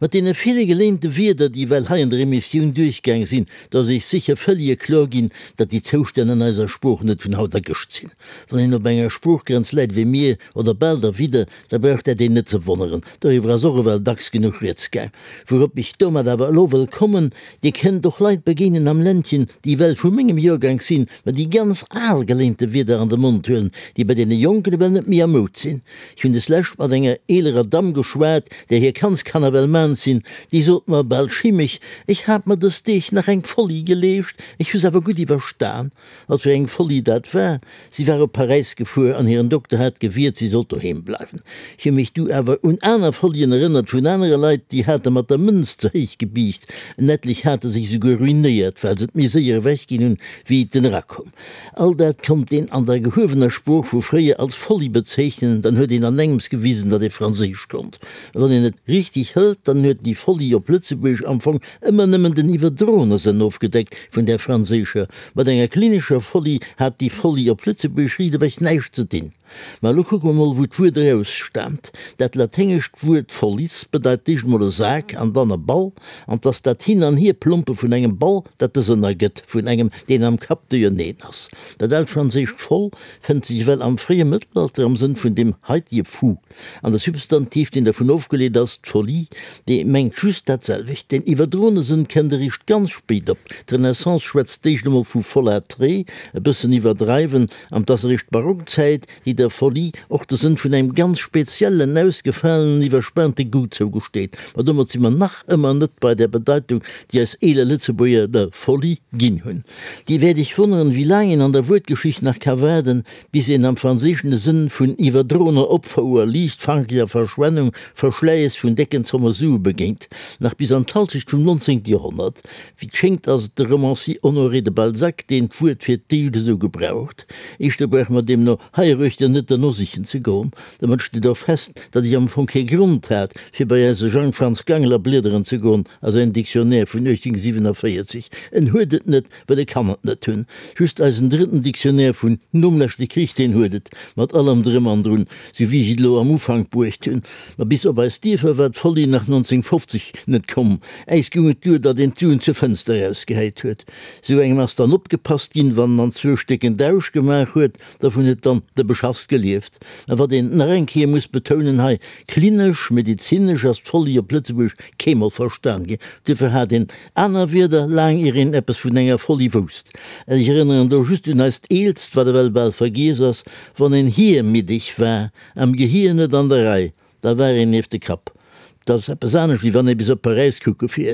Mat deene ville geléinte Wierder, déi ewell hei an der Emissioun duerchgaang sinn, do ass Iech sécher völlige kloer ginn, datt déi Zoustänn an eiser Sprooch net vun haut a gëscht sinn. Wann een op enger Sproochgrenz läit wéi mir, oder bal derwidder, da brauch dat een net ze wonneren. Doriwwer ass och ewell dacks genuch rieds gaang. Wourop ech domat awer elo wëll kommen, Dir kënnt och Leit begéinen am Ländchen, déi ewell vu mengem Joergank sinn, mä déi ganz al geléinte Wierder an de Mond huelen, déi bei deene Jonken ewell net méi a Moud sinn. Ech hunn deslescht mat enger eelerer Damm geschwat, där hir Kandskanner well maans sinn. Déi sot mer bal schimmeg, Ech hat mer dës Deeg nach eng Folie geleescht, ech hu s'awer gutt iwwerstan. Wat fir eng Folie dat war? Si war op Paräis gefuer an hiren Dokter hat gewiert, si sollt doheem bleiwen. Ech hu mech du awer un aner Folien erënnert vun anere Leit, déi hate mat der Mënz ze héich gebiicht. En etlech hate sech esouguer ruinéiert, well se et méi séier ewechginn hunn, wéi et en erakoum. All dat konnt een an der gehuewener Sprooch vu fréier als Folie bezeechnen, dann huet een an engems gewisen, datt ee Franséisch konnt. A wann een et richteg hëlt, dann huet déi Folie op Lëtzebuergesch am Fong ëmmer nëmmen den iwwerdroene Sënn ofgedeckt vun där franséischer. Mat enger klinescher Folie hat déi Folie op Lëtzebuergesch riichtewech näischt ze dinn. Ma elo kucke mer mol, wou d'Wuert erausstaamt. Dat laténgescht Wuert follis bedeit d'éischt mol e Sak an dann e Ball, an 't ass dat Hin an Hierplompe vun engem Ball, dat de Sënn ergëtt vun engem, deen am Kapp duerjerneen ass. Dat aalt franséischt fol fënnt sech ewell am fréie Mëttelalter am Sënn vun deem haitige fou. An de Substantiv, deen dervun ofgeleet ass, d'Folie, dee mengt just dat selwecht. Deen iwwerdroene Sënn kënnt eréischt ganz spéit op. D'Renaissance schwätzt d'éischt emol vu folâtrer, e bëssen iwwerdreiwen, an 't ass eréischt d'Barockzäit, déi der Folie och de Sënn vun engem ganz speziellen, ausgefalenen, iwwerspaante Goût zougesteet. Ma domat si mer nach ëmmer net bei där Bedeitung, déi eis eeler Lëtzebuerger der Folie ginn hunn. Dir wäert Iech wonneren, wéi laang een an der Wuertgeschicht nach ka waarden, bis een am Franséischen de Sënn vun iwwerdroener Opfouer, liichtfankeger Verschwennung, Verschläiss vun décken Zomme Sue begéint. Nach bis an d'Halschecht vum 19. Joerhonnert. Wéi 't schéngt ass et de Romancier Honoré de Balzac, deen d'Wuert fir d'éischt esou gebraucht. Éischter brauche mer deemno heiruechter net derno sichen ze goen. Domat steet och fest, datt ech am Fong kee Grond hat, fir bei eise Jang Franz Gangler bliederen ze goen a säin Dictionnaire vun 1847. En huet et net, well e kann et net hunn. Just eisen drëtten Dictionnaire vun nom leschte Krich, deen huet et, mat allem Drëm an Drun, sou wéi ech et elo am Ufank bruecht hunn. Ma bis op eis Dierfer war d'Folie nach 1950 net komm. Äis goung et duer, datt een d'Suen zur Fënster erausgehäit huet. Sou engem ass dann opgepasst ginn, wann en anzwousch décken Dausch gemaach huet, dervun huet dann de Beschass gelieft. Mä wat een nach eng Kéier muss betounen hei, Klinesch, medezinesch ass d'Folie op Lëtzebuergesch keemol verstan ginn. Duerfir hat een aner Wierder, laang ier een eppes vun enger Folie wousst. Ech erënneren do just un eist eelst, wat ewell bal vergiess ass, Wann een hiermiddeg war, am Gehier net an der Rei, da war een nieft de Kapp. Dat ass eppes anescht, wéi wann ee bis op Paräis kucke fiert.